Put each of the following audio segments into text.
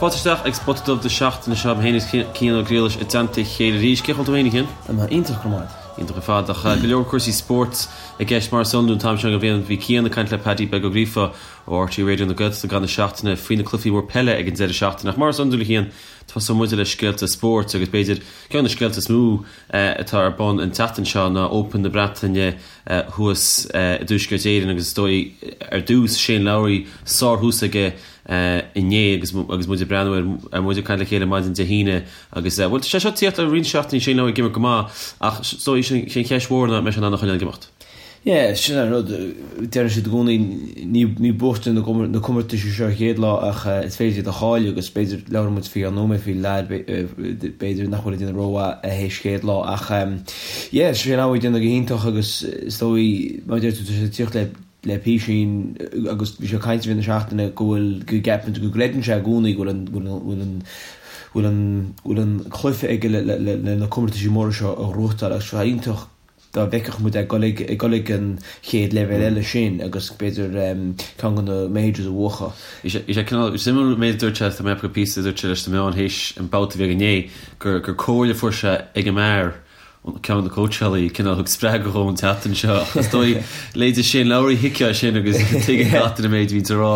Fáilte isteach ag Spota Dubh na seachtaine seo, mé féin agus Cian Ó Griallais i dteannta a chéile arís. Cén chaoi a bhfuil tú féin, a Chian? Tá mé iontach, go raibh maith agat. Iontach ar fad, ach go leor cúrsaí spóirt i gceist mar is iondúil an t-am seo den bhliain. Bhí Cian ag caint le Paddy Beag Ó Gríofa ó RTÉ Raidió na Gaeltachta i gcaitheamh na seachtaine faoi na cluichí mór peile ag an deireadh seachtaine. Ach mar is iondúil, a Chian, tosóidh muide le scéalta spóirt agus b'fhéidir ceann de na scéalta is mó atá ar bun an tseachtain seo ná Open na Breataine thuas i dTuaisceart Éireann agus is dóigh ar dtús Shane Lowry sárthús aige inné agus agus muid ag breathnú air ar muid ag caint le chéile maidin Dé hAoine agus bhuel tá sé seo ag tíocht le roinnt seachtainí Shane Lowry ag imirt go maith ach is dóigh sin an cheist mhór ná an mbeidh sé in ann a choinneáil ag imeacht. Yeah, sin an rud, deireann siad i gcónaí ní ní buachan na comórtais seo an chéad lá ach is féidir iad a chailleadh agus b'fhéidir labhróidh muid faoi cheann nóiméad faoi leaid b'fhéidir nach bhfuil ag déanamh rómhaith théis chéad lá ach yeah, Shane Lowry ag déanamh go hiontach agus is dóigh mar a deir tú tá sé ag tíocht le le písín agus bhí sé ag caint i rith na seachtaine go bhfuil go gceapann go gcreideann sé i gcónaí go bhfuil an go bhfuil an bhfuil an bhfuil an cluiche aige le le le na comórtaisí móra seo a ghnóthachtáil agus tá sé iontach dá bhfeicfeadh muid é ag dul ag ag dul ag an chéad leibhéal eile sin agus b'fhéidir ceann de na majors a bhuachan. Bhí sé bhí sé cineál suimiúil an méid a dúirt sé, tá mé ag píosa a dúirt sé leis na meáin théis an babhta a bhí aige inné gur gur comhairle a fuair sé ag an mbeár ceann de na cóitseálaí cineál thug spreagadh dhó an tseachtain seo ach is dóigh leithéide Shane Lowry thuigfeá sin agus tuigeann gach duine an méid a bhíonns á rá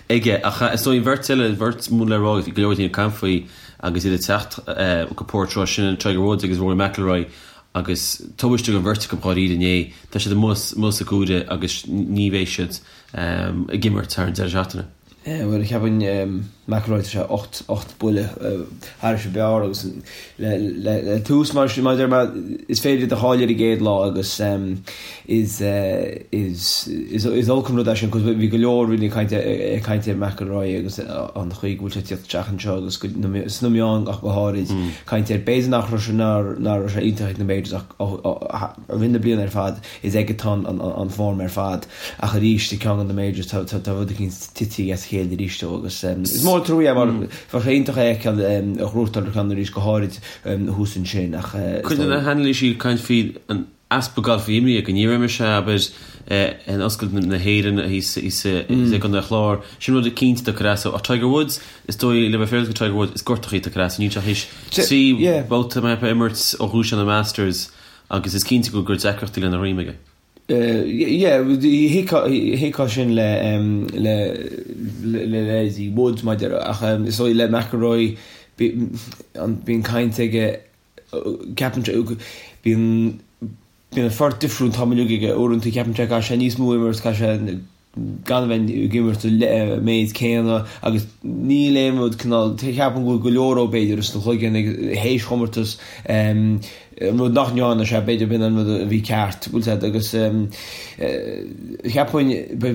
aige ach is dóigh an bheirt eile an bheirt mór le rá go leor daoine ag caint faoi agus iad ag teacht go Portrush sin Tiger Woods agus Rory McIlroy agus tubaiste don bheirt acu dháiríre inné. Tá siad amuigh amuigh sa gcúire agus ní bheidh siad ag imirt thar an deireadh seachtaine. Bhuel, cheapfainn McIlroy tá sé 8 8 buille thairis an bhfear agus le le le tús mar sin mar a deir mé is féidir iad a chailleadh ar an gcéad lá agus is is is is olc an rud é sin 'cause bhí go leor daoine ag caint ag caint ar McIlroy agus an chaoi go bhfuil sé ag tíocht isteach anseo agus go sna meáin ach go háirid. Caint air. B'fhéidir nach raibh sé nach raibh sé iontach ag na Majors ach i rith na bliana ar fad is aige atá an form ar fad ach arís i gceann de na Majors tá tá rud eicínt tite as a chéile arís dó agus is mór an trua é mar bheadh sé iontach é a fheiceáil ag gnóthachtáil ceann arís go háirid thuas ansin ach Cuid de na hanailísí ag caint faoi an easpa gailf a bhí imeartha aige, ní raibh mise, abair, in Oscailt na hÉireann thíos i gContae an Chláir, sin rud eicínt atá ag cur as dó. Ach Tiger Woods, is dóigh, le bheith féaráilte do Tiger Woods, is gortachaí atá ag cur as dó. Níl sé théis 3 babhta mar a imirt ó dhúisigh na Masters agus is cinnte go bhfuil deacrachtaí lena dhroim aige. Yeah, thuigfeá sin le le le leithéidí Woods mar a deir, ach is dóigh le McIlroy bíonn caint aige Ceapann sé, bíonn, bíonn an phort difriúil an t-am uilig aige, uaireanta ceapann sé caithfidh sé níos mó a imirt, caithfidh sé gan a bheith ag imirt an méid céanna agus níl aon rud cineál, ceapaim go bhfuil go leor ó b'fhéidir ins an chloigeann ag théis chomórtas, an rud nach ndearna sé, b'fhéidir b'in an rud a bhí ceart, bhfuil a fhios agat, agus cheapfainn, de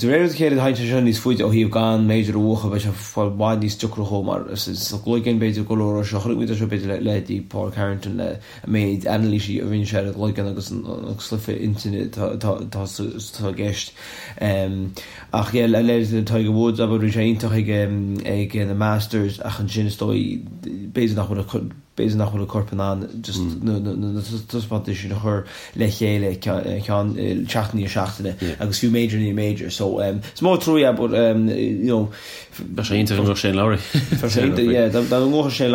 réir a chéile thagann sé seo níos faide ó thaobh gan major a bhuachan, beidh sé i bhfad níos deacra dhó mar sa gcloigeann b'fhéidir go leor seo chonaic muid é seo b'fhéidir le leithéidí Pádraig Harrington le an méid anailísí a rinne sé ar an gcloigeann agus an cluiche intinne atá i gceist. Ach yeah le leithéidí Tiger Woods abair bhí sé iontach ag ag na Masters ach ansin is dóigh b'fhéidir nach bhfuil b'fhéidir nach bhfuil a corp in ann just na taispeántais sin a chur le chéile ceann seachtain i ndiaidh seachtaine agus fiú major i ndiaidh major so is mór an trua é but you know Bheadh sé iontach dá mbuafadh Shane Lowry. Bheadh sé iontach yeah dá mbuafadh Shane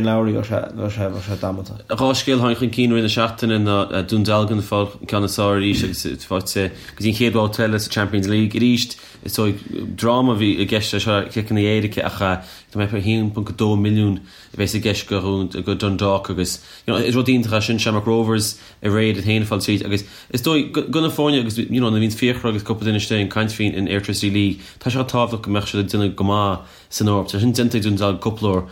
Lowry bheadh sé bheadh sé bheadh sé damanta. Dhá scéal a tháinig chun cinn i rith na seachtaine ná Dún Dealgan ag fáil an ceann is fearr arís agus faighte go dtí an chéad bhabhta eile sa Champions League arís. Is dóigh dráma a bhí i gceist leis seo ciceanna éirice ach tá mé ag 1.2 milliún a bheas i gceist go go Dundalk agus you know is rud iontach é sin Shamrock Rovers aréir iad féin ag fáil tríd agus is dóigh go na foirne agus you know nuair a bhíonn Fiachra agus cúpla duine istigh ag caint faoin in Airtricity League tá sé tábhachtach go mbeadh siad ag déanamh go maith san Eoraip. Tá sin déanta ag Dún Dealgan cúpla uair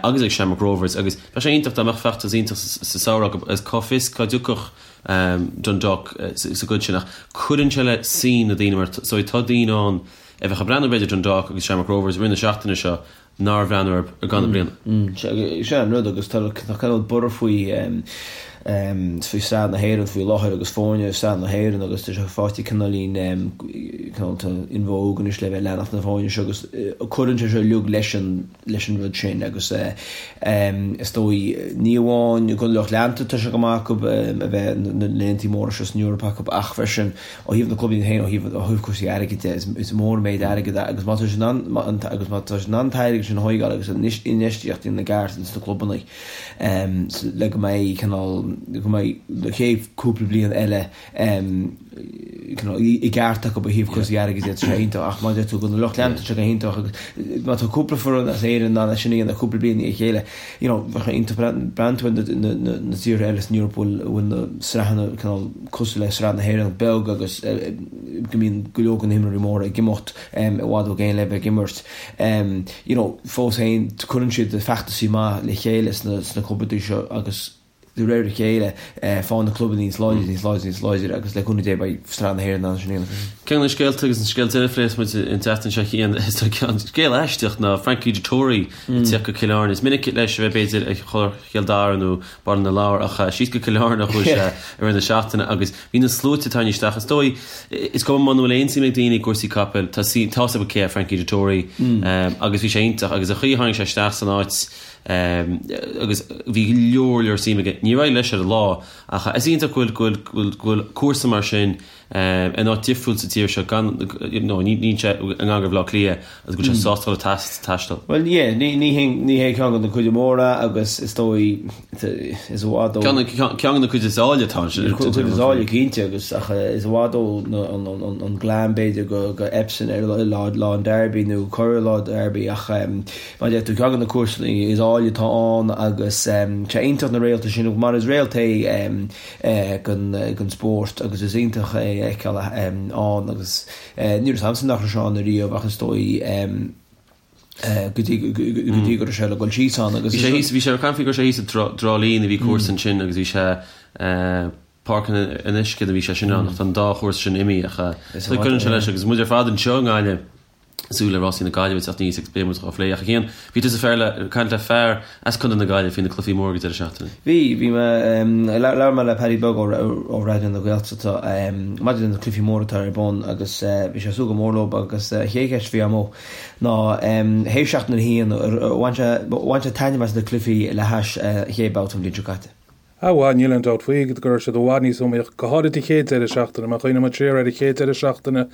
agus ag Shamrock Rovers agus bheadh sé iontach dá mbeadh feachtas iontach sa samhradh acu agus cá bhfios cá dtiocfadh Dundalk sa gcuid sin ach cuireann sé le suim na daoine mar so tá daoine ann a bheadh ag breathnú b'fhéidir Dundalk agus Shamrock Rovers i rith na seachtaine seo nár bhreathnaigh orthu i gcaitheamh na bliana. Sin an rud agus tá cineál borradh faoi. faoi Sraith na hÉireann faoi láthair agus foirne i Sraith na hÉireann agus tá sé faighte cineáilín cineál in vogue anois le bheith ag leanacht na foirne seo agus cuireann sé seo uilig leis an leis an rud sin agus is dóigh ní amháin don lucht leanta tá sé go maith acu a bheith na laethanta móra seo san Eoraip acu ach freisin ó thaobh na clubanna féin ó thaobh ó thaobh cúrsaí airgid de is mór an méid airgid é agus má tá siad in ann agus má tá siad in ann an t-airgead sin a thógáil agus infheistíocht a dhéanamh i gceart ins na clubanna le go mbeidh cineál go mbeidh na chéad cúpla bliain eile cineál i gceart acu ó thaobh cúrsaí airgid de, tá sé iontach ach mar a deir tú don lucht leanta tá sé go hiontach agus má tá cúpla foireann as Éirinn in ann é sin a dhéanamh cúpla bliain i ndiaidh a chéile you know bheadh sé iontach breathnú tú ar na tíortha eile san Eoraip a bhfuil na sraitheanna cineál cosúil le sraith na hÉireann beag agus go mbíonn go leor de na himreoirí móra ag imeacht i bhfad ó gcéin le bheith ag imirt. You know, fós féin, cuireann siad feachtasaí maith le chéile sna sna clubanna seo agus de réir a chéile faigheann na clubanna níos láidre, níos láidre, níos láidre agus le cúnamh Dé beidh Sraith na hÉireann in ann sin a dhéanamh freisin. Ceann de na scéalta agus an scéal deiridh a phléifidh muid an tseachtain seo Cian, is dóigh scéal aisteach ná Frankie Dettori ag tíocht go Cill Airne. Is minic leis a bheith b'fhéidir ag Chill Dara nó Baile na Lobhar ach síos go Cill Airne a chuaigh sé i rith na seachtaine agus Bhí na sluaite ag tarraingt isteach. Is dóigh, is cuma muna bhfuil aon suim ag daoine i gcúrsaí capaill, tá tá fhios acu cé hé Frankie Dettori agus bhí sé iontach agus an chaoi a tháinig sé isteach san áit agus bhí go leor leor suim aige. Níor éirigh leis ar an lá ach is iontach go bhfuil go bhfuil go bhfuil cúrsa mar sin in áit difriúil sa tír seo gan you know ní níl sé i ngar do Bhaile Átha Cliath agus go bhfuil sé sásta dul ag taisteal. Bhuel yeah, ní ní hé ní hé ceann de na cuid móra agus is dóigh is i bhfad ó. Ceann de na cuid is áille atá ansin. Cuid is áille cinnte agus ach is i bhfad ó an glam b'fhéidir go go Epsom ar lá lá an Derby nó corr lá Derby ach mar a deir tú ceann de na cúrsaí is áille atá ann agus sé iontach na réalta sin mar is réalt é den spórt agus is iontach é a fheiceáil ann agus ní raibh agamsa nach raibh sé ann ariamh ach is dóigh go dtí go dtí go raibh sé le dul síos ann agus Bhí sé thíos, bhí sé ar caint go raibh sé thíos i dTrá Lí a bhí cúrsa ansin agus bhí sé Páirc an Uisce a bhí sé sin ann ach tá an dá chúrsa sin imithe ach cuireann sé leis agus muid ar fad anseo i nGaillimh ag súil le rásaí na Gaillimhe ag teacht aníos agus beidh muid á phlé ach a Chian, bhí tusa fear le, caint le fear as Contae na Gaillimhe faoi na cluichí móra ag an deireadh seachtaine. Bhí, bhí mé, labhair mé le Paddy Beag ó ó Raidió na Gaeltachta maidir le na cluichí móra atá ar bun agus bhí sé ag súil go mór leo agus an chéad cheist a bhí agam ná théis seachtain a haon, ar bhain sé, bhain sé taitneamh as na cluichí le hais an chéad babhta an bhliain seo caite? Ah bhuel, níl aon dabht faoi go raibh siad i bhfad níos iomaíoch, go háirid an chéad deireadh seachtaine. Má chuimhníonn muid siar ar an chéad deireadh seachtaine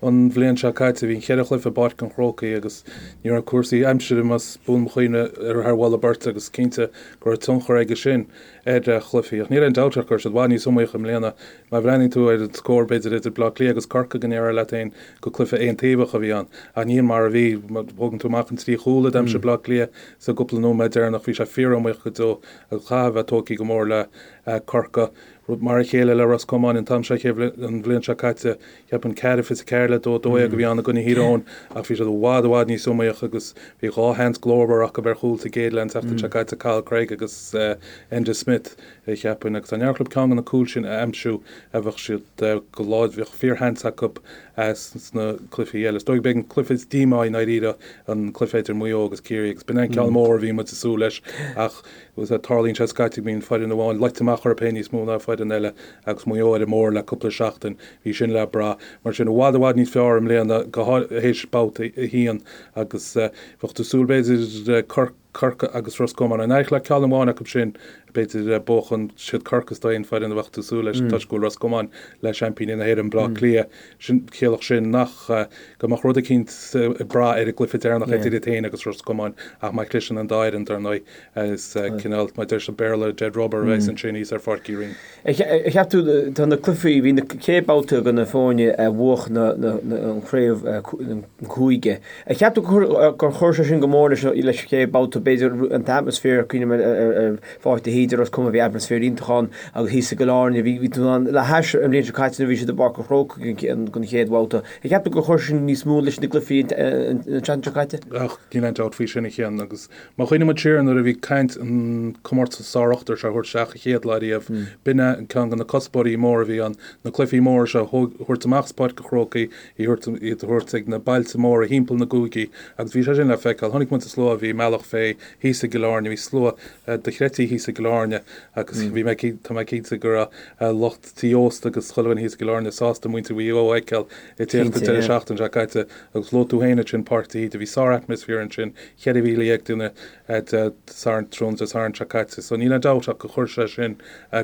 an bhliain seo caite, bhí an cheithre chluiche i bPáirc an Chrócaigh agus ní raibh cúrsaí aimsire, más buan mo chuimhne, ar thar mholadh beirte agus cinnte go raibh tionchar aige sin ar chluichí. Ach níl aon dabht ach go raibh siad i bhfad níos iomaíoch i mbliana. Má bhreathnaíonn tú ar an scór, b'fhéidir, idir Bleá Cliath agus Corcaigh go ndéarfá leat féin gur cluiche aontaobhach a bhí ann. Ach ní hin mar a bhí. Má thógann tú amach an trí chúl a d'aimsigh Bleá Cliath sa gcúpla nóiméad deireanach, bhí sé fíor-iomaíoch go deo. Agus chaithfeá a bheith tógtha go mór le Corcaigh. Rud mar a chéile le Ros Comáin an t-am seo an bhliain seo caite. Cheapfainn 4-24 le 2, 12 a bhí ann i gcoinne Thír Eoghain ach bhí siad i bhfad i bhfad níos iomaíoch agus bhí dhá sheans glórmhar acu ar chúl sa gcéad leath an tseachtain seo caite, Cathal Cregg agus Enda Smith, cheapfainn. Agus dá n-éireodh leo ceann de na cúil sin a aimsiú bheadh siad go láidir, bheadh fíorsheans acu sna cluichí eile. Is dóigh b'é an cluiche is díomá i ndáiríre an cluiche idir Maigh Eo agus Ciarraí agus b'in é an ceann mór a bhí muid ag súil leis ach tarlaíonn sé scaití go mbíonn foireann amháin loite amach orthu féin níos mó ná foireann eile agus Maigh Eo ar an mbóthar le cúpla seachtain, bhí sin le brath. Mar sin i bhfad i bhfad níos fearr i mbliana go théis babhta a haon agus bheadh tú ag súil b'fhéidir Corcaigh, Corcaigh agus Ros Comáin. An éireodh le ceann amháin acu sin, b'fhéidir, buachan. Siad Corcaigh is dóigh an foireann a bheadh tú ag súil leis toisc go bhfuil Ros Comáin le seaimpíní na hÉireann, Bleá Cliath. Sin, chiallódh sin nach, go mbeadh rud eicínt ag brath ar an gcluiche deireanach idir iad féin agus Ros Comáin ach má chliseann an dá fhoireann, dar ndóigh, is cineál, mar a deir sa Bhéarla, dead rubber a bheas ansin thíos ar Pháirc Uí Rinn. Ar cheap tú, tá na cluichí, bhí na chéad babhta do na foirne a bhuach na, na, an chraobh, an cúige. Ar cheap tú gur chuir sé sin go mór leis an chéad babhta, b'fhéidir, an t-atmaisféar, cuimhním ar Pháirc de hÍde, Ros Comáin, bhí atmaisféar iontach ann agus thíos i gCill Airne, bhí tú in ann, le hais an bhliain seo caite nuair a bhí siad i bPáirc an Chrócaigh don chéad bhabhta. Ar cheap tú gur chuir sin níos mó leis na gcluichí an tseachtain seo caite? Ach níl aon dabht faoi sin a Chian agus má chuimhníonn muid siar nuair a bhí caint an comórtas sár-ochtar seo a thabhairt isteach an chéad lá riamh, b'in é ceann de na cuspóirí móra a bhí ann, na cluichí móra seo a thabhairt amach as Páirc an Chrócaigh, iad a thabhairt ag na bailte móra thimpeall na gcúigí agus bhí sé sin le feiceáil. Chonaic muid an slua a bhí i mBealach Féich. Chiarraí thíos i gCill Airne, bhí slua dochreidte thíos i gCill Airne agus bhí mé, tá mé cinnte go raibh lucht tí ósta agus chuile dhuine thíos i gCill Airne sásta muintir Mhaigh Eo a fheiceáil ag tíocht an deireadh seachtaine seo caite agus luaigh tú féin ansin Páirc de hÍde, bhí sár-atmaisféar ansin, 14,000 duine Dé Sathairn, tráthnóna Dé Sathairn seo caite. So níl aon dabht ach gur chuir sé sin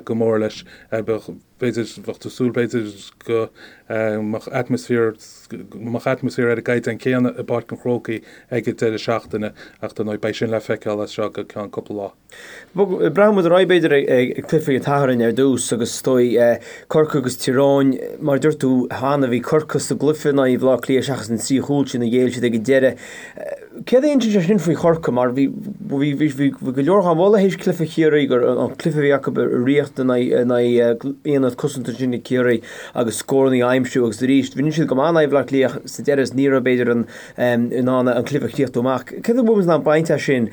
go mór leis. Bheadh, b'fhéidir, bheadh tú ag súil b'fhéidir go mbeadh atmaisféar, go mbeadh atmaisféar ar an gcaighdeán céanna i bPáirc an Chrócaigh ag an deireadh seachtaine ach dar ndóigh beidh sin le feiceáil as seo go ceann cúpla lá. Breathnóidh muid ar aghaidh b'fhéidir ag cluiche an tSathairn ar dtús agus is dóigh Corcaigh agus Tír Eoghain, mar a dúirt tú cheana bhí Corcaigh sa gcluiche in aghaidh Bhaile Átha Cliath seachas an trí chúl sin a ghéill siad ag an deireadh. Céard a insíonn sé sin faoi Chorcaigh mar bhí bhí go leor á mholadh théis cluiche Chiarraí gur an cluiche a bhí acu a rith in aghaidh aonad cosanta sin ag Ciarraí agus scóranna a aimsiú agus arís rinne siad go maith in aghaidh Bhaile Átha Cliath sa deireadh is ní raibh b'fhéidir an in ann an cluiche a chríochnú amach. Céard a bhfuil muid in ann baint as sin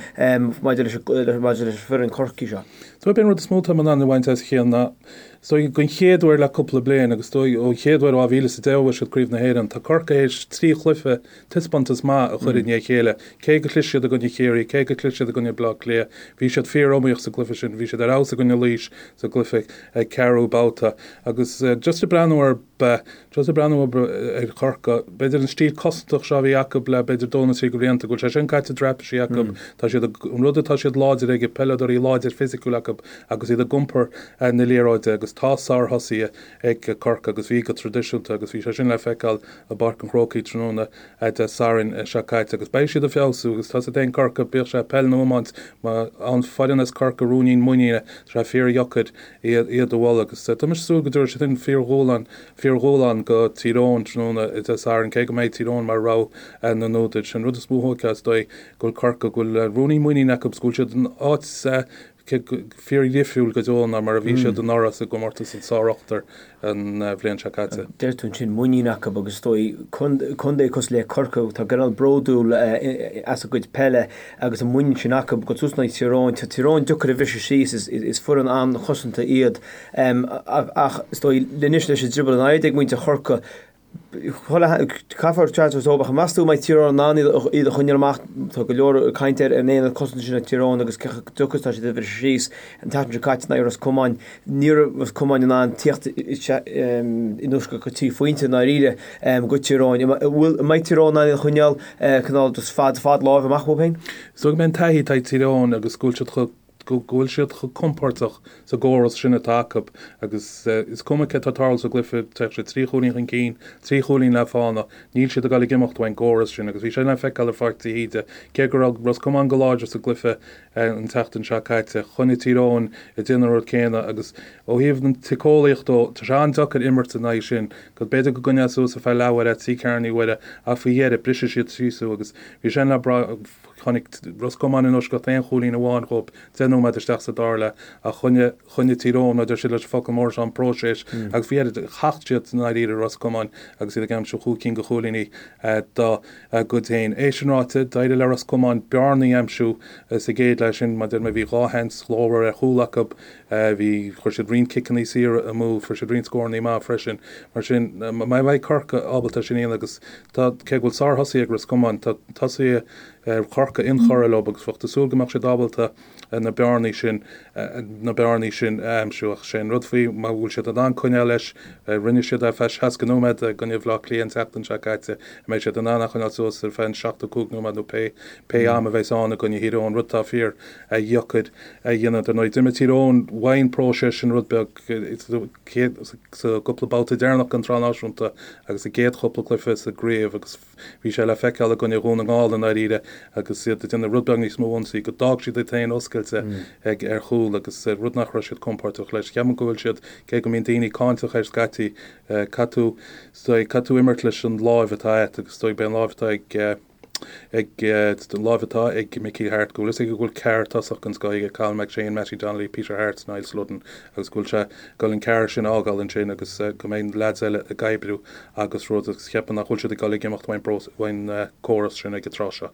maidir leis maidir leis an foireann Corcaigh seo? So b'é an rud is mó atá in ann a bhaint as a chéile ná is dóigh den chéad uair le cúpla bliain agus is dóigh ón chéad uair ó 2010 a bhuaigh siad Craobh na hÉireann, tá Corcaigh théis trí chluiche taispeántas maith a chur i ndiaidh a chéile. Cé go chlis siad i gcoinne Chiarraí, cé go chlis siad i gcoinne Bleá Cliath, bhí siad fíor-iomaíoch sa gcluiche sin. Bhí siad ar fheabhas i gcoinne Laois sa gcluiche ceathrú babhta. Agus just ag breathnú ar, just ag breathnú ar Chorcaigh, b'fhéidir an stíl cosantach seo a bhí acu le b'fhéidir dó nó trí de bhlianta, go bhfuil sé sin caite i dtraipisí acu. Tá siad, an rud atá siad láidir aige, peileadóirí láidir fisiciúil acu agus iad ag iompar na liathróide agus tá sárthosaithe ag Corcaigh agus bhí go traidisiúnta agus bhí sé sin le feiceáil i bPáirc an Chrócaigh tráthnóna Dé Sathairn seo caite agus beidh siad ag feabhsú agus tá a fhios agat féin Corcaigh, bíodh sé peil nó iomáint, má fhaigheann foireann as Corcaigh ruainnín muiníne, tá sé fíordheacair iad a bhualadh agus tá mise ag súil go dtabharfaidh siad sin fíordhúshlán, fíordhúshlán go Tír Eoghain tráthnóna Dé Sathairn cé go mbeidh Tír Eoghain mar rogha na n-údar. Sin an rud is mó a thóigfeá is dóigh go bhfuil Corcaigh, go bhfuil ruainnín muiníne acu agus go bhfuil siad in áit fíordhifriúil go deo ná mar a bhí siad anuraidh sa gcomórtas an Sár-Ochtar an bhliain seo caite. Deir tú ansin muinín acu agus is dóigh contae cosúil le Corcaigh atá cineál bródúil as a gcuid peile agus an muinín sin acu go suas in aghaidh Tír Eoghain. Tá Tír Eoghain deacair a bhriseadh síos, is foireann an-chosanta iad ach is dóigh anois leis an drioball in airde ag muintir Chorcaí Caithfear teacht ar ach meas tú an mbeidh Tír Eoghain in ann iad a choinneáil amach? Tá go leor cainte ar an aonad cosanta sin ag Tír Eoghain agus cé chomh deacair is atá siad a bhriseadh síos. An tseachtain seo caite in aghaidh Ros Comáin, ní raibh Ros Comáin in ann tíocht i ndeisceart go trí phointe i ndáiríre go Tír Eoghain. An mbeidh Tír Eoghain in ann iad a choinneáil cineál just fad fad láimhe amach uathu féin? Is dóigh go mbeidh an taithí atá ag Tír Eoghain agus go bhfuil siad chomh go bhfuil siad chomh compordach sa gcóras sin atá acu agus is cuma céard atá ag tarlú sa gcluiche, téadh siad trí chúilín chun cinn, trí chúilín le fána, níl siad ag dul ag imeacht ón gcóras sin agus bhí sé le feiceáil ar Pháirc de hÍde, cé go raibh Ros Comáin go láidir sa gcluiche an tseachtain seo caite, choinnigh Tír Eoghain ag déanamh an rud céanna agus ó thaobh na síceolaíochta dó, tá sé an-deacair imirt in aghaidh sin, go b'fhéidir go gcoinneofá suas ar feadh leathuaire, trí ceathrú uaire ach faoi dheireadh, brisfidh siad síos thú agus bhí sin le brath. Chonaic Ros Comáin in eisceacht aon chúilín amháin dhóibh 10 nóiméad isteach sa dara leath ach choinnigh choinnigh Tír Eoghain, mar a deir siad leis an focal mór seo, an próiseas agus faoi dheireadh thacht siad i ndáiríre Ros Comáin agus iad ag aimsiú chúig cinn de chúilíní dá gcuid féin. É sin ráite, d'éirigh le Ros Comáin bearnaí a aimsiú sa gcéad leath sin, mar a deir mé bhí dhá sheans ghlórmhar ar chúl acu, bhí, chuir siad roinnt ciceanna saora amú, fuair siad roinnt scóranna maith freisin. Mar sin, má bheidh Corcaigh ábalta sin a dhéanamh agus Tá, cé go bhfuil sárthosaithe ag Ros Comáin, tá tosaithe Chorcaí inchurtha leo agus bheadh tú ag súil go mbeadh siad ábalta na bearnaí sin, na bearnaí sin a aimsiú. Ach sé an rud faoi, má bhfuil siad in ann coinneáil leis, rinne siad é ar feadh 60 nóiméad i gcoinne Bhaile Átha Cliath an tseachtain seo caite, an mbeidh siad in ann é a choinneáil suas ar feadh an 75 nóiméad nó pé, pé am a bheas ann i gcoinne Thír Eoghain, rud atá fíor dheacair a dhéanamh. Dar ndóigh, d'imir Tír Eoghain uaidh an próiseas sin rud beag, sa gcúpla babhta deireanach den tSraith Náisiúnta agus sa gcéad chúpla cluiche sa gcraobh agus bhí sé le feiceáil i gcoinne Dhún na nGall i ndáiríre agus iad ag déanamh rud beag níos mó ionsaí go d'fhág siad iad féin oscailte ag ar chúl agus rud nach raibh siad compordach leis. Ceapaim go bhfuil siad, cé go mbíonn daoine cáinteach air scaití, caithfidh tú, caithfidh tú imirt leis an láimh atá agat agus is dóigh beidh an láimh atá ag. ag an láimh atá ag Mickey Harte, go bhfuil fhios aige go bhfuil ceathrar tosach den scoth aige, Cathal McShane, Mattie Donnelly, Peter Harte, Niall Sludden agus go bhfuil sé ag dul an ceathrar sin a fhágáil ansin agus go mbeidh na leaids eile ag oibriú agus rud agus cheapfainn nach bhfuil siad ag dul ag imeacht uain córas sin ag an tráth seo.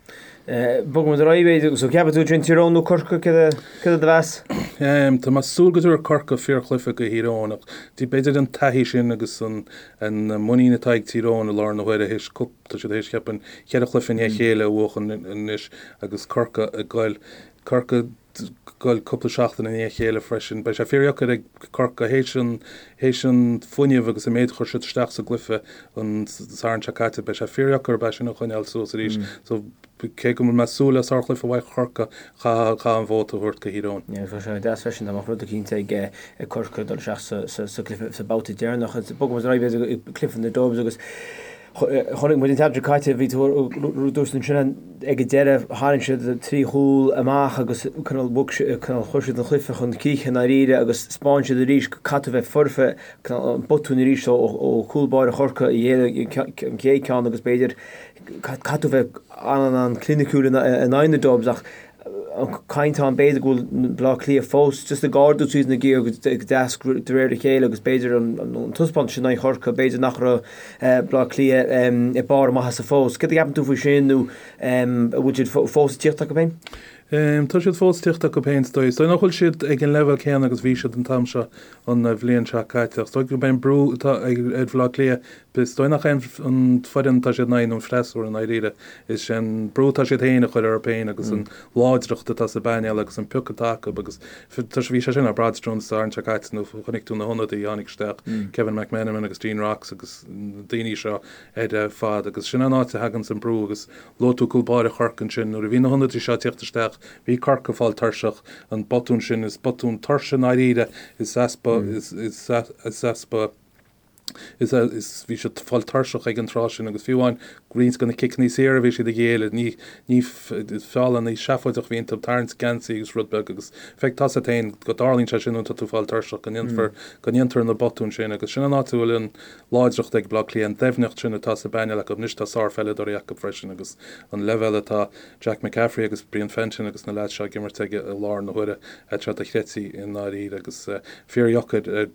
Bogfaidh muid ar aghaidh b'fhéidir, so ceapann tú sin Tír Eoghain nó Corcaigh, céard é do mheas? Tá mé ag súil go dtabharfaidh Corcaigh fíorchluiche go Thír Eoghain ach b'fhéidir an taithí sin agus an muinín atá ag Tír Eoghain i láthair na huaire théis tá siad théis cheapfainn cheithre chluiche i ndiaidh a chéile a bhuachan anois agus Corcaigh ag goil Corcaigh ag goil cúpla seachtain i ndiaidh a chéile freisin. Beidh sé fíordheacair ag Corcaigh théis an théis an fuinneamh agus an méid a chuir siad isteach sa gcluiche an Satharn seo caite beidh sé fíordheacair orthu é sin a choinneáil suas arís. So Cé go bhfuil mé ag súil le sárchluiche uaidh Chorcaigh, chaithfeá an vóta a thabhairt go Thír Eoghain. Yeah, bheadh sé deas freisin dá mbeadh rud eicínt ag Corcaigh dul isteach sa gcluiche, sa babhta deireanach. Bogfaidh muid ar aghaidh b'fhéidir go cluiche na Dubs agus chonaic muid an tseachtain seo caite, bhí tú dúirt ansin ag an deireadh tharraing siad trí chúl amach agus cineál bhog cineál chuir siad an chluiche chun críche i ndáiríre agus 'spáin siad arís go caithfidh tú bheith foirfe, cineál an botún arís ó chúl báire Chorcaí a ghéill an chéad ceann agus b'fhéidir Caithfidh tú bheith an-an-chliniciúil in aghaidh na Dubs ach an chaint ann b'fhéidir go bhfuil Baile Átha Cliath fós just ag ardú suas na giar go deas de réir a chéile agus b'fhéidir an taispeántas sin in aghaidh Chorcaí b'fhéidir nach raibh Baile Átha Cliath ag barr a maitheasa fós. Céard a cheapann tú faoi sin nó an bhfuil siad fós ag tíocht acu féin? Tá siad fós ag tíocht acu féin is dóigh. Is dóigh nach bhfuil siad ag an leibhéal céanna agus bhí siad an t-am seo an bhliain seo caite. Ach is dóigh gurb é an brú atá ar Bhaile Átha Cliath Is dóigh nach é an foireann atá siad in aghaidh nó an freasúra i ndáiríre, is é an brú atá siad féin a chur orthu féin agus an láidreacht atá sa bpainéal agus an pioc atá acu agus tá sé, bhí sé sin le brath an Satharn seo caite nó chonaic tú na hionadaithe a tháinig isteach, Kevin McMenamin agus Dean Rocks agus na daoine seo ar fad agus sin an áit a thaganns an brú agus luaigh tú cúl báire Chorcaí ansin, nuair a bhí na hionadaithe seo ag tíocht isteach bhí Corcaigh ag fáil tuirseach, an botún sin, is botún tuirse i ndáiríre, is easpa, is easpa. Is bhí siad ag fáil tuirseach ag an tráth sin agus fiú amháin roinnt de na ciceanna saora a bhí siad a ghéilleadh, ní, ní feall seafóideach a bhí iontu, tarraingt geansaí agus rud beag agus feic tá a fhios agat féin go dtarlaíonn sé sin nuair atá tú ag fáil tuirseach, go ndéanfar, go ndéantar na botúin sin agus sin an áit a bhfuil an láidreacht ag Baile Átha Cliath, an doimhneacht sin atá sa bpainéal acu. Anois tá sárpheileadóirí acu freisin agus an leibhéal atá Jack McCaffrey agus Brian Fenton agus na leaids seo ag imirt aige i láthair na huaire, tá sé dochreidte i ndáiríre agus fíordheacair ar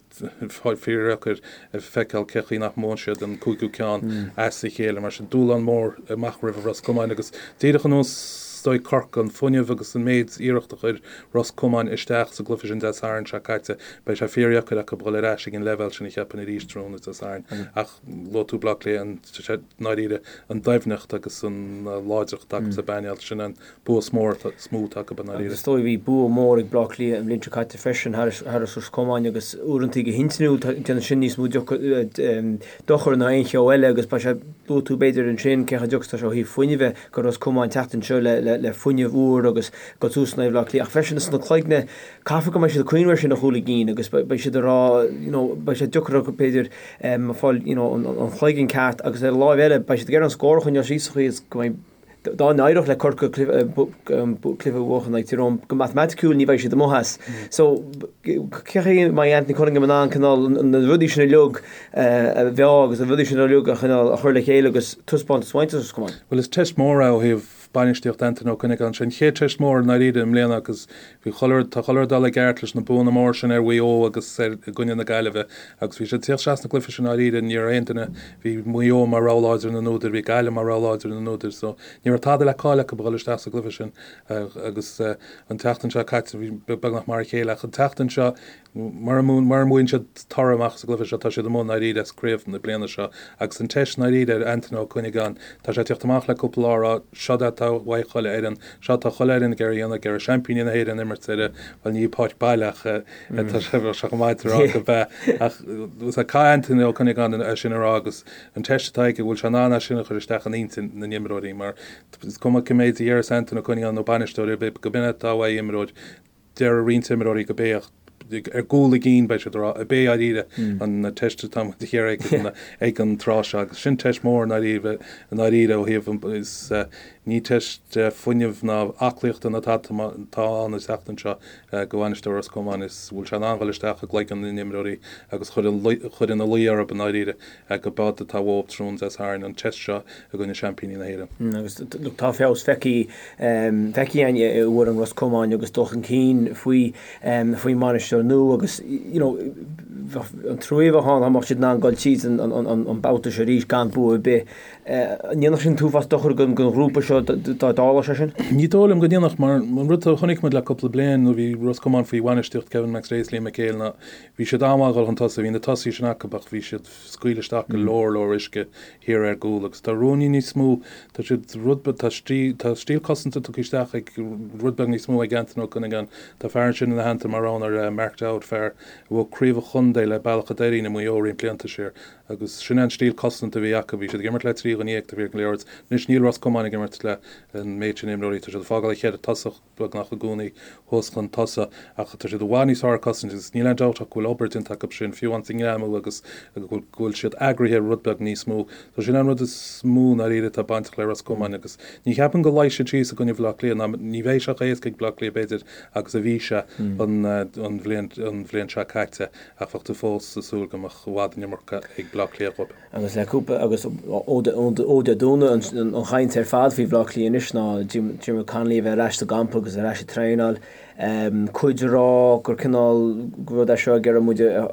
Fíordheacair a feiceáil cé chaoi nach mbuann siad an cúigiú ceann as a chéile. Mar sin, dúshlán mór amach roimh Ros Comáin agus díreach ar nós is dóigh Corcaigh, an fuinneamh agus an méid iarracht a chuir Ros Comáin isteach sa gcluiche sin Dé Sathairn seo caite, beidh sé fíordheacair acu dhul ar ais ag an leibhéal sin a cheapfainn arís tráthnóna Dé Sathairn. Ach luaigh tú Baile Átha Cliath, i ndáiríre, an doimhneacht agus an láidreacht atá acu sa bpainéal, sin an bua is mó atá is mó atá acu i ndáiríre. Agus is dóigh bhí bua mór ag Bleá Cliath an bhliain seo caite freisin thar Ros Comáin agus uaireantaí go hintinniúil déanann sin níos mó dochair ná aon cheo eile agus beidh sé luaigh tú b'fhéidir ansin cé chomh deacair is atá sé ó thaobh fuinnimh do Ros Comáin teacht anseo le fuinneamh úr agus dul suas in aghaidh Bhleá Cliath ach freisin sna cloigne caithfear go mbeidh siad ag cuimhneamh air sin a chúl a gcinn agus beidh siad ag rá you know beidh sé deacair acu b'fhéidir fáil you know an chloigeann ceart agus ar an láimh eile beidh siad ag iarraidh an scór a choinneáil síos sa chaoi is go mbeidh Dá n-éireodh le Corcaigh cluiche a bhuachan in aghaidh Tír Eoghain, go matamaiticiúil ní bheidh siad amuigh as. So, cé chaoi a mbeidh Anthony Cunningham in ann cineál na rudaí sin uilig a mheá agus na rudaí sin uilig a chineál a chur le chéile agus taispeántas a bhaint as Ros Comáin? Bhuel, is teist mhór é ó thaobh bainistíocht Anthony Ó Cuinneagáin. Sé an chéad teist mhór i ndáiríre i mbliana agus Bhí chuile rud, tá chuile rud ag dul i gceart leis na buanna móra sin ar Mhaigh Eo agus ar, i gcoinne na Gaillimhe agus bhí siad ag tíocht isteach sna gcluiche sin dáiríre, ní raibh aon duine, bhí Maigh Eo mar rogha láidir na n-údair, bhí Gaillimh mar rogha láidir na n-údair so ní raibh tada le cailleadh acu a dhul isteach sa gcluiche sin agus an tseachtain seo caite bhí beagnach mar a chéile ach an tseachtain seo Mura mbuann siad toradh amach sa gcluiche seo, tá siad amuigh i ndáiríre as craobh na bliana seo. Agus an teist i ndáiríre ar Antaine Ó Cuinneagáin, tá sé ag tíocht amach le cúpla lá a rá, seod é atá uaidh chuile fhoireann, seo atá chuile fhoireann ag iarraidh a dhéanamh, ag iarraidh seaimpíní na hÉireann a imirt ar, bhuel ní páirc baile ach tá sé, bheadh sé chomh maith a rá go b'ea. Ach caithfidh Antaine Ó Cuinneagáin é sin a rá agus an teist atá aige, bhfuil sé in ann é sin a chur isteach in intinn na n-imreoirí mar is cuma cé méid a dhéarfas Antaine Ó Cuinneagáin nó bainisteoir ar bith, go b'in é atá uaidh imreoir, Deir roinnt imreoirí go b'é ar gcúl a gcinn, beidh siad ag rá, ab é dáiríre an teist atá muid a iarraidh ag an tráth seo agus sin teist mhór i ndáiríre i ndáiríre ó thaobh is ní teist fuinnimh ná aclaíochta ná tada atá ann an tseachtain seo do bhainisteoir Ros Comáin is bhfuil sé in ann dhul isteach i gcloigeann na n-imreoirí agus chur chur ina luí orthu i ndáiríre go b'eod atá uathu tráthnóna Dé Sathairn an teist seo i gcoinne seaimpíní na hÉireann. Agus tá feabhas feicthe feicthe againn i bhfoireann Ros Comáin agus dul chun cinn faoi faoin mbainisteoir nua agus you know. An trua a bheadh ann dá mbeadh siad in ann dul tríd an babhta seo arís gan bua ar bith. An ndéanfadh sin an t-uafás dochair don ghrúpa seo dá dtarlódh sé sin? Ní dóigh liom go ndéanfadh mar an rud a chonaic muid le cúpla bliain nuair a bhí Ros Comáin faoi bhainistíocht Kevin McStay is Liam McHale ná bhí siad an-mhaith ag dul chun tosaigh, bhí na tosaithe sin acu ach bhí siad scaoileadh isteach go leor leor uisce thiar ar gcúl agus tá ruainnín níos mó, tá siad rud beag, tá stíl, tá stíl cosanta tugtha isteach ag rud beag níos mó ag Anton Ó Cuinneagáin. Tá fear ansin ina theannta mar rogha ar Mark Dowd, fear a bhuaigh craobh an chontae le Bealach a' Doirín i Maigh Eo roinnt blianta siar agus sin é an stíl cosanta a bhí acu. Bhí siad ag imirt le 13 dhuine taobh thiar den liathróid. Anois níl Ros Comáin ag imirt le an méid sin imreoirí, tá siad ag fágáil an cheithre tosach. beagnach i gcónaí thuas chun tosaigh ach tá siad i bhfad níos fearr ag cosaint agus níl aon dabht ach go bhfuil obair déanta acu sin, fiú amháin sa ngreamú agus go bhfuil siad eagraithe rud beag níos mó. So sin an rud is mó i ndáiríre atá bainteach le Ros Comáin agus ní cheapaim go luífidh siad síos i gcoinne Bhaile Átha Cliath ná ní bheidh sé chomh héasca ag Baile Átha Cliath b'fhéidir agus a bhí sé an bhliain an bhliain seo caite ach bheadh tú fós ag súil go mbeadh i bhfad an iomarca ag Baile Átha Cliath dhóibh. Agus le cúpla, agus ó Dé Domhnaigh an chaint ar fad faoi Bhaile Átha Cliath anois ná Diarmuid Connolly a bheith ar ais sa gcampa agus ar ais ag traenáil. Cuid ag rá gur cineál rud é seo ag iarraidh muid a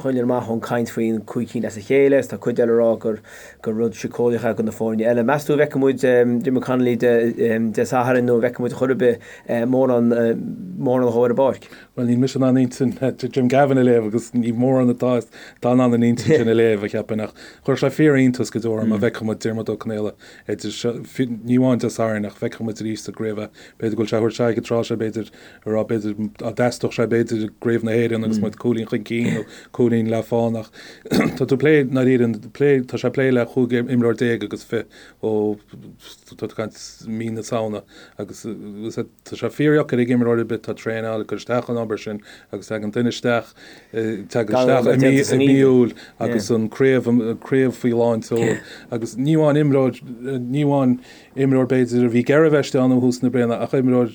choinneáil amach ón gcaint faoin gcúig cinn as a chéile agus tá cuid eile ag rá gur gur rud síceolaíoch é do na foirne eile. Meas tú an bhfeicfidh muid Diarmuid Connolly Dé Sathairn nó an bhfeicfidh muid chor ar bith mórán mórán dhó ar an bpáirc? Bhuel, níl mise in ann intinn Jim Gavin a léamh agus ní mórán atá atá in ann an intinn sin a léamh, a cheapfainn, ach chuirfeadh sé fíor-iontas go deo orm má bhfeicfeadh muid Diarmuid Ó Conaola idir seo, ní amháin Dé Sathairn ach feicfeadh muid arís sa gcraobh é. B'fhéidir go bhfuil sé a thabhairt aghaidh an tráth seo, b'fhéidir, a rá, b'fhéidir dá dteastódh sé, b'fhéidir, i gCraobh na hÉireann agus muid cúilín chun cinn nó cúilín le fán ach tá tú ag plé, i ndáiríre, plé, tá sé ag plé le 15 imreoir agus fi ó, tá tú ag caint mí na Samhna agus Tá sé fíordheacair ag imreoir ar bith atá ag traenáil, ag cur isteach an obair sin agus tagann duine isteach, tagann isteach i mí, i mí Iúil agus an craobh, an craobh faoi lán tseoil agus ní amháin imreoir, ní amháin imreoir b'fhéidir a bhí ag iarraidh a bheith istigh ann ó thús na bliana ach imreoir,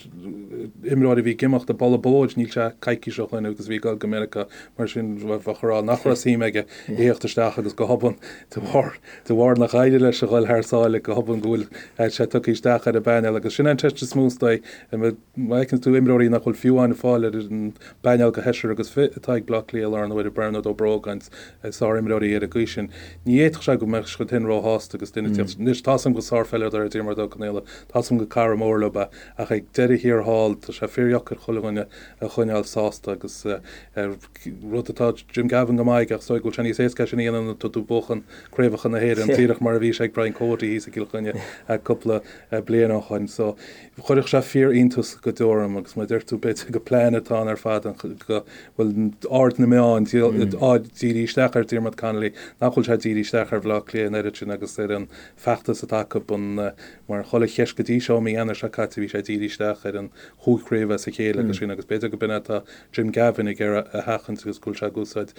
imreoir a bhí ag imeacht ag boladh bóid níl sé coicís ó shoin agus a bhí ag dul go Meiriceá mar sin bheadh a rá nach raibh suim aige a thíocht isteach agus go hobann de bharr De bharr nach éirigh leis a dhul thar sáile go hobann go bhfuil sé tugtha isteach ar an bpainéal agus sin an cheist is mó is dóigh. Má fheiceann tú imreoirí nach bhfuil fiú amháin ag fáil ar an bpainéal de sheisear agus fi atá ag Bleá Cliath i láthair na huaire, Bernard Ó Brógáin, sárimreoirí ar an gcaoi sin, ní fhéadfadh sé go mbeadh siad féin róshásta agus duine ag tíocht. Anois, tá's agam gur sárpheileadóir é Diarmuid Ó Conaola, tá's agam gur cara mór leo é ach ag deireadh thiar thall tá sé fíordheacair chuile dhuine a choinneáil sásta agus rud atá Jim Gavin go maith aige ach is dóigh go bhfuil sé níos éasca é sin a dhéanamh nuair atá tú ag buachan craobhacha na hÉireann díreach mar a bhí sé ag Brian Cody thíos i gCill Chainnigh cúpla bliain ó shoin. So chuirfeadh sé fíor-iontas go deo orm agus mar a deir tú b'fhéidir gur plean atá ann ar fad go bhfuil aird na meán á díriú isteach ar Diarmuid Connolly nach bhfuil sé dírithe isteach ar Bhaile Átha Cliath an oiread sin agus ar an feachtas atá acu an mar chuile cheist go dtí seo mí Eanáir seo caite bhí sé dírithe isteach ar an chúig chraobh as a chéile agus sin agus b'fhéidir go b'in é atá Jim Gavin ag iarraidh a sheachaint agus go bhfuil sé ag úsáid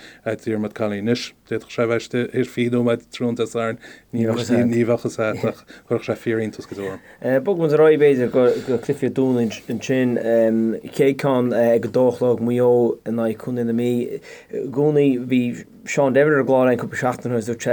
Diarmuid Connolly. Anois, d'fhéadfadh sé a bheith istigh théis 20 nóiméad tráthnóna Dé Sathairn, ní bheadh a fhios agat ach chuirfeadh sé fíor-iontas go deo orm. Bogfaidh muid ar aghaidh, b'fhéidir, go cluichí an Domhnaigh ansin. Chéad ceann ag a dó a chlog, Maigh Eo in aghaidh Chontae na Mí. I gcónaí bhí Seán Devitt ar an gclár againn cúpla seachtain ó shin dúirt sé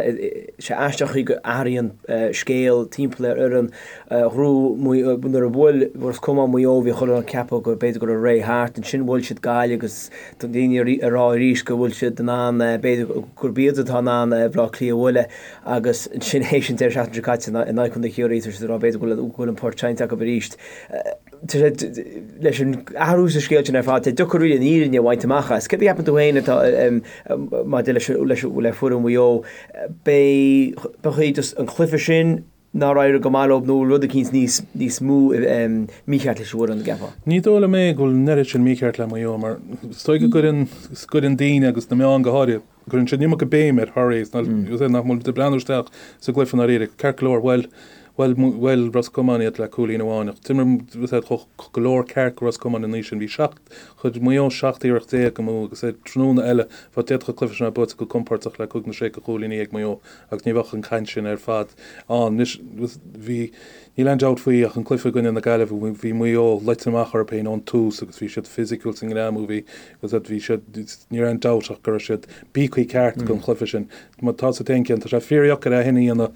sé aisteach chaoi go athraíonn scéal timpeall ar fhoireann. Ghnóthaigh nuair a bhuail Ros Comáin Maigh Eo bhí chuile dhuine ag ceapadh go b'fhéidir go raibh ré thart. Ansin bhuail siad Gaillimh agus tá daoine ag rá arís go bhfuil siad in ann b'fhéidir gurb iad atá in ann Baile Átha Cliath a bhualadh agus ansin théis an deireadh seachtaine seo caite in aghaidh Chontae Chiarraí tá siad ag rá b'fhéidir go bhfuil an port seinnte acu arís. Leis an athrú sa scéal sin ar fad, tá sé deacair really an fhírinne a bhaint amach as. Céard a cheapann tú féin atá maidir leis le foireann Mhaigh Eo? B'é just an cluiche sin nár éirigh go maith leo nó rud eicínt níos níos mó mícheart leis an bhfoireann, an gceapfá? Ní dóigh liom é go bhfuil an oiread sin mícheart le Maigh Eo mar is dóigh go gcuireann gcuireann daoine agus na meáin go háirithe, Cuireann siad an iomarca béim ar Thoraí is nach bhfuil ag breathnú isteach sa gcluiche i ndáiríre. Ceart go leor, bhuail, bhuail, bhuail Ros Comáin iad le cúilín amháin ach d'imir siad chomh go leor ceart go Ros Comáin an oíche sin. Bhí seacht, chuir Maigh Eo 17 iarracht amú agus ar tráthnóna eile bheadh d'fhéadfadh an cluiche sin a bheith buaite go compordach le cúig nó sé de chúilíní ag Maigh Eo agus ní bheadh an chaint sin ar fad ann. Anois bhí Níl aon dabht faoi ach an cluiche i gcoinne na Gaillimhe, bhí Maigh Eo luite amach orthu féin ón tús agus bhí siad fisiciúil sa ngreamú, bhí, bhí siad, ní raibh aon dabht ach go raibh siad bíogtha ceart don chluiche sin. Má tá sa t-aon ceann, tá sé fíordheacair é sin a dhéanamh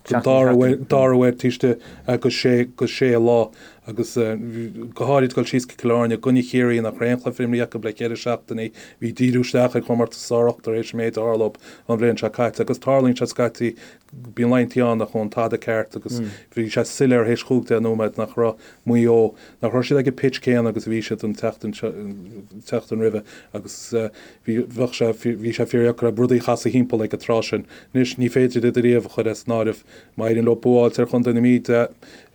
don dara huair, dara huair taobh istigh de sé, de sé lá. Agus go háirid dul síos go Cill Airne i gcoinne Chiarraí nach raibh aon chluiche imrithe acu le ceithre seachtainí, bhí díriú isteach ar chomórtas sár-ochtar théis an méid a tharla dóibh an bhliain seo caite. Agus tarlaíonn sé scaití, bíonn laethanta ann nach ngabhann tada ceart agus bhí sé soiléir théis chúig deich nóiméad nach raibh Maigh Eo, nach raibh siad ag an pitch céanna agus a bhí siad an tseachtain seo, an tseachtain roimhe agus bhí, bheadh sé, bhí sé fíordheacair rudaí a chasadh thimpeall ag an tráth sin. Anois ní féidir iad ariamh a chur as an áireamh. Má éiríonn leo bua a fháilt ar Chontae na Mí Dé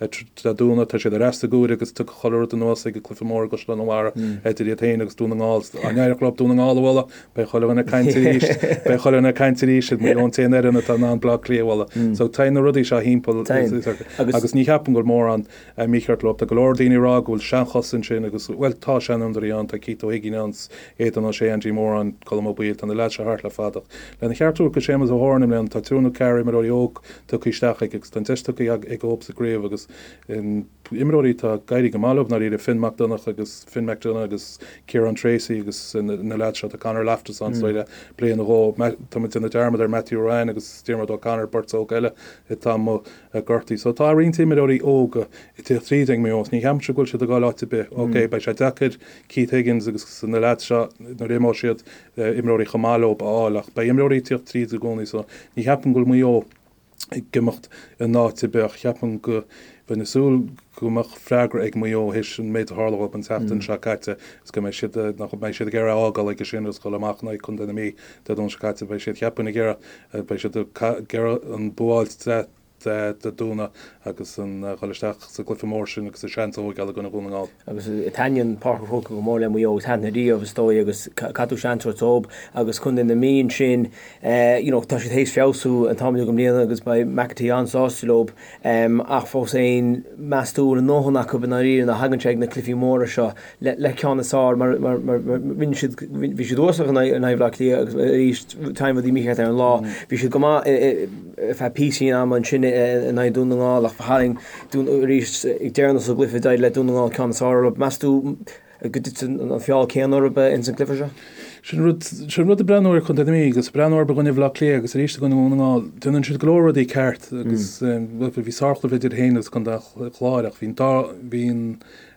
Domhnaigh, tá siad ar ais sa gcomhaireamh agus tiocfaidh chuile rud anuas ag an gcluiche mór i gCaisleán an Bharraigh idir iad féin agus Dún na nGall. Dá n-éireodh leo Dún na nGall a bhualadh, beidh chuile dhuine ag caint arís, beidh chuile dhuine ag caint arís, Maigh Eo an t-aon fhoireann atá in ann Baile Átha Cliath a bhualadh. So téann na rudaí seo thimpeall agus ní cheapaim go bhfuil mórán mícheart leo. Tá go leor daoine ag rá go bhfuil seanchos ansin agus, bhuel, tá seanfhondúirí ann, tá Keith Ó hUiginn ann, Aidan O'Shea, Andy Moran, Colm Ó Baoill, tá na leaids seo thart le fada. Ach lena cheart a thabhairt do Séamus O'Horan i mbliana, tá triúr nó ceathrar imreoirí óg tugtha isteach aige agus tá an deis tugtha aige dhóibh sa gcraobh agus imreoirí atá ag éirí go maith leo i ndáiríre, Finn Mac Donach agus Finn McDonagh agus Ciarán Tracey agus na leaids seo, tá Conor Loftus ann so le bliain nó dhó. Tá muid ag déanamh dearmad ar Matthew Ruane agus Diarmuid O'Connor, beirt óg eile atá amuigh gortaithe. So tá roinnt imreoirí óga ag tíocht tríd ag Maigh Eo. Ní cheapaimse go bhfuil siad ag dul áit ar bith. Ok, beidh sé deacair Keith Higgins agus na leaids seo nuair a imeoidh siad, imreoirí chomh maith leo a fháil ach beidh imreoirí ag tíocht tríd i gcónaí so ní cheapaim go bhfuil Maigh Eo ag imeacht in áit ar bith ach cheapaim go bheinn ag súil go mbeadh freagra ag Maigh Eo théis an méid a tharla dhóibh an tseachtain seo caite is go mbeidh siad, nach mbeidh siad ag iarraidh a fhágáil aige sin agus dhul amach in aghaidh Contae na Mí Dé Domhnaigh seo caite. Beidh siad, cheapfainn, ag iarraidh, beidh siad ag iarraidh an bua a fháilt Dé Domhnaigh agus an dhul isteach sa gcluiche mór sin agus a seans a thóigeáil i gcoinne Dhún na nGall. Agus taitníonn Páirc an Chrócaigh go mór le Maigh Eo agus thaitin riamh is dóigh agus caithfidh tú seans a thabhairt dóibh agus Contae na Mí ansin you know tá siad théis feabhsú an t-am uilig i mbliana agus beidh McEntee an-sásta leo ach fós féin meas tú an bhfuil a ndóthain acu i ndáiríre nuair a thagann sé ag na cluichí móra seo le ceann is fearr mar rinne siad, bhí siad uasal in aghaidh Bhaile Átha Cliath agus arís tagann rudaí mícheart ar an lá. Bhí siad go maith ar feadh píosaí in ama ansin in aghaidh Dún na nGall ach tharraing Dún arís ag deireanas an gcluiche d'éirigh le Dún na nGall ceann is fearr orthu. Meas tú go dtitfidh an feall céanna orthu ins an gcluiche seo? Sin rud, sin rud ag breathnú ar Chontae na Mí agus ag breathnú orthu i gcoinne Bhaile Átha Cliath agus arís i gcoinne Dhún na nGall, déanann siad go leor rudaí ceart agus bhí sárchluiche idir féin agus Contae an Chláir ach bhí an dá, bhí an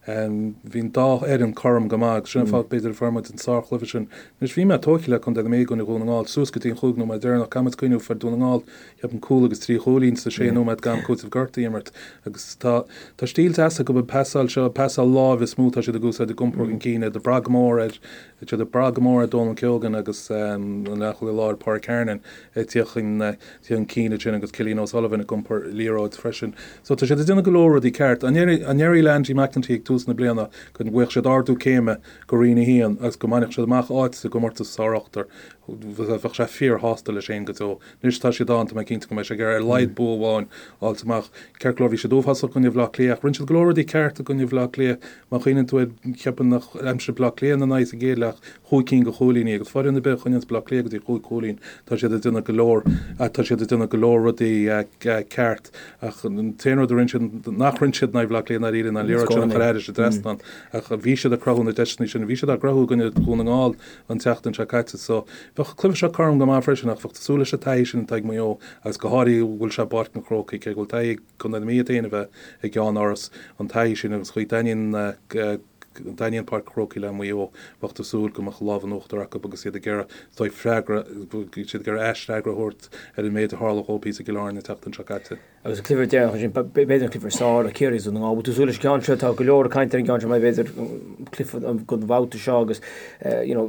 Bhí an dá fhoireann cothrom go maith agus sin an fáth b'fhéidir a fuair muid an sárchluiche sin. Anois bhí mé tógtha le Contae na Mí i gcoinne Dhún na nGall suas go dtí an chúig nóiméad deireanach. Caithfidh muid cuimhniú fuair Dún na nGall cheapfainn cúl agus trí chúilín sa sé nóiméad d'am cúitimh gortaithe a imirt agus tá tá stíl deas acu an pasáil seo, pasáil láimhe is mó atá siad ag úsáid ag iompar chun cinn iad ag brath go mór ar siad ag brath go mór ar Donal Keogan agus an leathchúlaí láir Pádraig Hernon ag tíocht chun chun cinn ansin agus Cillian O'Sullivan ag iompar liathróid freisin. So tá siad ag déanamh go leor rudaí ceart. An ndéarfaí le Andy McEntee ag tús na bliana go bhfaigheadh siad ardú céime go Roinn 1 agus go mbainfeadh siad amach áit sa gcomórtas sár-ochtar, bheadh sé fíorshásta leis féin go deo. Anois tá siad ann, tá mé cinnte go mbeidh sé ag iarraidh ar a laghad bua amháin a fháilt amach. Ceart go leor bhí siad uafásach i gcoinne Bhaile Átha Cliath ach rinne siad go leor rudaí ceart i gcoinne Bhaile Átha Cliath. Má chuimhníonn tú air, cheapfainn nár aimsigh Baile Átha Cliath ina n-aghaidh sa gcéad leath chúig cinn de chúilíní agus foireann ar bith a choinníonns Baile Átha Cliath go dtí chúig chúilín, tá siad ag déanamh go leor, tá siad ag déanamh go leor rudaí ceart ach an t-aon rud a rinne siad, nach rinne siad in aghaidh Bhaile Átha Cliath i ndáiríre ná an liathróid sin a chur thairis an dtrasnán ach bhí siad ag cruthú na deiseanna sin, bhí siad á gcruthú i gcoinne Dhún na nGall an tseachtain seo caite so bheadh an cluiche seo cothrom go maith freisin ach bheadh tú ag súil leis an taithí sin atá ag Maigh Eo agus go háirithe go bhfuil sé i bPáirc an Chrócaigh cé go bhfuil taithí ag Contae na Mí iad féin a bheith i gceannáras, an taithí sin agus chaoi dtaitníonn dtaitníonn Páirc an Chrócaigh le Maigh Eo, bheadh tú ag súil go mbeadh lámh in uachtar acu agus iad ag iarraidh is dóigh freagra, siad ag iarraidh aisfhreagra a thabhairt ar an méid a tharla dhóibh thíos i gCill Airne an tseachtain seo caite. Agus an cluiche deireanach ansin, b'fhéidir an cluiche is fearr, Ciarraí is Dún na nGall. Bhfuil tú ag súil leis an gceann seo? Tá go leor ag caint ar an gceann seo mar b'fhéidir cluiche don bhabhta seo agus you know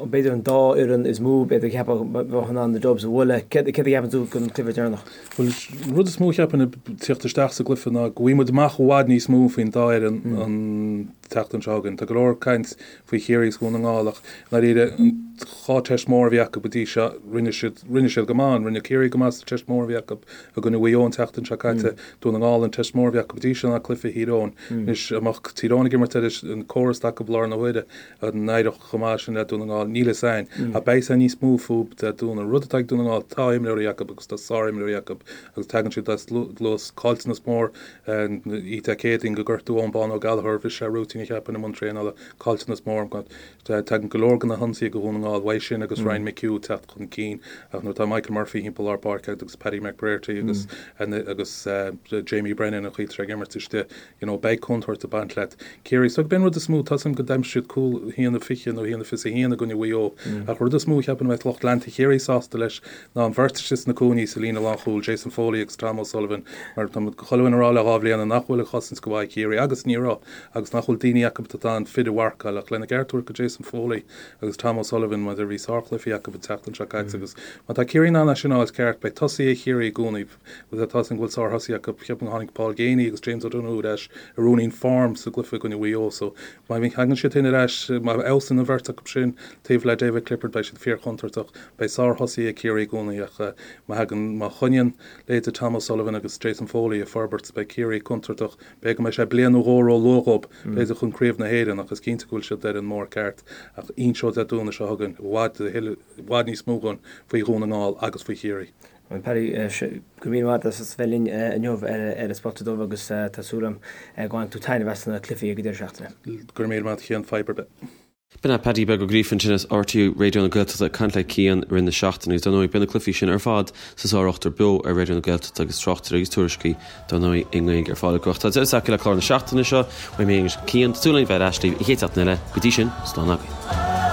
b'fhéidir an dá fhoireann is mó b'fhéidir a cheapfadh bheadh in ann na Dubs a bhualadh. Céard a cheapann tú don cluiche deireanach? Bhuel, an rud is mó a cheapfainn ag tíocht isteach sa gcluiche ná go bhfaighidh muid amach i bhfad níos mó faoin dá fhoireann an tseachtain seo chugainn. Tá go leor caint faoi Chiarraí agus Dhún na nGall ach i ndáiríre an dhá teist mór a bhí acu go dtí seo, rinne siad, rinne siad go maith ann. Rinne Ciarraí go maith sa teist mór a bhí acu i gcoinne Mhaigh Eo an tseachtain seo caite. Dún na nGall an teist mór a bhí acu go dtí seo ná cluiche Thír Eoghain. Anois, an mbeadh Tír Eoghain ag imirt ar an córas atá acu i láthair na huaire, An n-éireodh chomh maith sin le Dún na nGall? Níl fhios a'inn. Ach beidh fhios a'inn níos mó fúb Dé Domhnaigh. An rud atá ag Dún na nGall, tá imreoirí acu agus tá sár-imreoirí acu agus tagann siad as luas caillteanas mór oíche Dé Céadaoin go gortú Eoin Bán Ó Gallchóir, bhris sé rúitín a cheapfainn i mbun traenála, caillteanas mór. Tagann go leor de na hionsaithe go Dhún na nGall. na nGall, uaidh sin agus Ryan McHugh ag teacht chun cinn ach nuair atá Michael Murphy thimpeall lár páirce agat agus Paddy McBrearty agus agus Jamie Brennan an chaoi atá sé ag imirt istigh, you know, beidh contúirt ag baint leat. Ciarraí, so b'in rud is mó, tá 'fhios a'm go d'aimsigh siad cúl 1-20 nó 1-21 i gcoinne Mhaigh Eo ach rud is mó a cheapaim a mbeadh lucht leanta Chiarraí sásta leis ná an bheirt istigh sna cúinní sa líne lánchúil, Jason Foley agus Tom O'Sullivan, mar tá chuile dhuine ag rá le dha bhliana nach bhfuil an chosaint go maith ag Ciarraí agus ní raibh agus nach bhfuil daoine acu atá in ann fir a mharcáil ach lena gceart a thabhairt do Jason Foley agus Tom O'Sullivan mar bhí sárchluichí acu an tseachtain seo caite agus má tá Ciarraí in ann é sin a fháil ceart beidh tosaithe Chiarraí i gcónaí Agus tá 'fhios a'm go bhfuil sárthosaithe acu, ceapaim go tháinig Paul Geaney agus James O'Donoghue ar ais ar ruainnín form sa gcluiche i gcoinne Mhaigh Eo so má thagann siad sin ar ais, má fheabhsaíonn an bheirt acu sin taobh le David Clifford beidh siad fíorchontúirteach. Beidh sárthosaithe ag Ciarraí i gcónaí ach má thagann, má choinníonn leithéidí Tom O'Sullivan agus Jason Foley ag forbairt beidh Ciarraí contúirteach. B'fhéidir go mbeidh sé bliain nó dhó ró-luath dhóibh, b'fhéidir chun Craobh na hÉireann ach is cinnte go bhfuil siad ar an mbóthar ceart ach inseoidh Dé Domhnaigh seo chugainn i bhfad, i bhfad níos mó dhúinn faoi Dhún na nGall agus faoi Chiarraí. Bhuel Paddy, go raibh míle maith agat as bheith linn inniu ar An Spota Dubh agus tá súil agam go mbainfidh tú taitneamh as na cluichí ag an deireadh seachtaine. Go raibh míle maith agat a Chian, fadhb ar bith. B'in é Paddy Beag Ó Gríofa ansin as RTÉ Raidió na Gaeltachta ag caint le Cian i rith na seachtaine agus dar ndóigh beidh na cluichí sin ar fad sa Sár-Ochtar beo ar Raidió na Gaeltachta agus tráchtaireacht agus tuairiscí dar ndóigh i nGaeilge ar fáil acu. Ach tá deireadh tagtha le clár na seachtaine seo, uaim féin agus Cian, tá súil againn bheith ar ais libh an chéad seachtain eile, go dtí sin, slán agaibh.